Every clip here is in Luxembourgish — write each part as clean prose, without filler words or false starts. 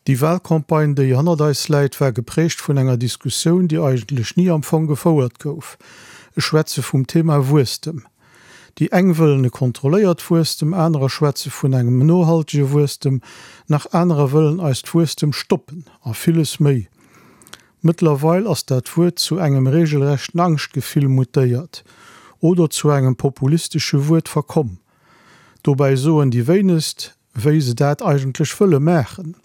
Déi Wahlcampagne, déi hannert eis läit, war geprägt vun enger Diskussioun, déi eigentlech ni am Fong gefouert gouf. Ech schwätze vum Thema Wuesstem. Déi eng wëllen e kontrolléiert Wuesstem, anerer schwätze vun engem nohaltege Wuesstem, nach anerer wëllen eist Wuesstem stoppen a villes méi. Mëttlerweil ass dat Wuert zu engem regelrechten Angschtgefill mutéiert oder zu engem populistesche Wuert verkomm. Dobäi soen déi wéinegst, wéi se dat eigentlech wëlle maachen.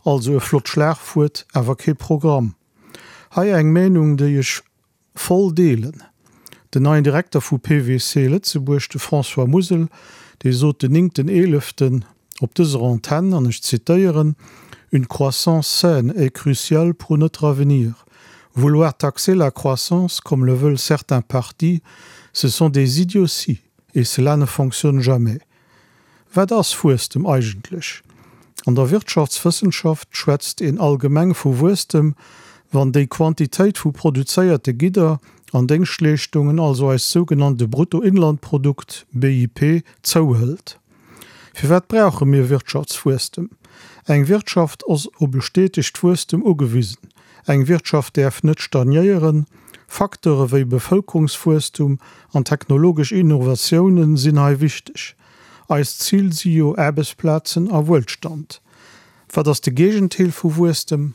Also e flott Schlagwuert, awer kee Programm. Hei eng Meenung, déi ech voll deelen. Den neien Direkter vu PWC Lëtzebuerg, de François Musel, dee sot den néngten eeleften op dëser Antenn, an ech zitéieren, Une croissance saine est cruciale pour notre avenir. Vouloir taxer la croissance comme le veulent certains partis, ce sont des idioties et cela ne fonctionne jamais. Wat ass Wuesstem eigentlech? An der Wirtschaftswëssenschaft schwätzt een allgemeng vu Wuesstem, wann déi Quantitéit vu produzéierte Gidder an Déngschtleeschtungen, also eist sougenannte Bruttoinlandprodukt, BIP, zouhëlt. Firwat brauche mir Wirtschaftswuesstem? Eng Wirtschaft ass op e stetegt Wuesstem ugewisen. Eng Wirtschaft däerf net stagnéieren. Facteure wéi Bevëlkerungswuesstum an technologesch Innovatioune sinn hei wichteg. Eist Zil si jo Aarbechtsplazen a Wuelstand. Wat ass de Géigenteil vu Wuesstem?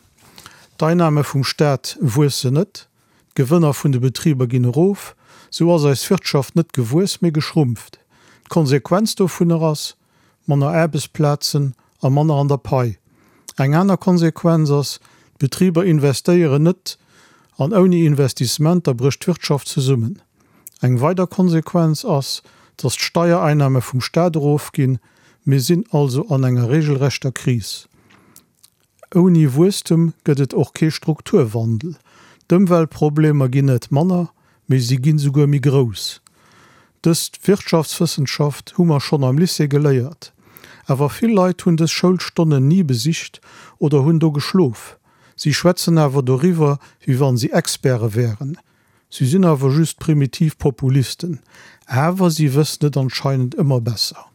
D'Einnahme vum Staat wuessen net, d'Gewënner vun de Betriber ginn erof. Sou ass eis Wirtschaft net gewuess, mee geschrumpft. D'Konsequenz dovunner ass, manner Aarbechtsplazen a manner an der Pai. Eng aner Konsequenz ass, d'Betriber investéieren net an ouni Investissementer brécht d'Wirtschaft zesummen. Eng weider Konsequenz ass, dass d'Steiereinnahme vum Staat erofginn. Mir sinn also an enger regelrechter Kris. Ouni Wuesstem gëtt et och kee Strukturwandel. D'Ëmweltproblemer ginn net manner, mee si ginn souguer méi grouss. Dës Wirtschaftswëssenschaft hu mer schonn am Lycée geléiert. Awer vill Leit hunn dës Schoulstonnen ni besicht oder hunn do geschlof. Si schwätzen awer doriwwer, wéi wann si Experte wären. Si sinn awer just primitiv Populisten. Awer si wëssen et anscheinend ëmmer besser.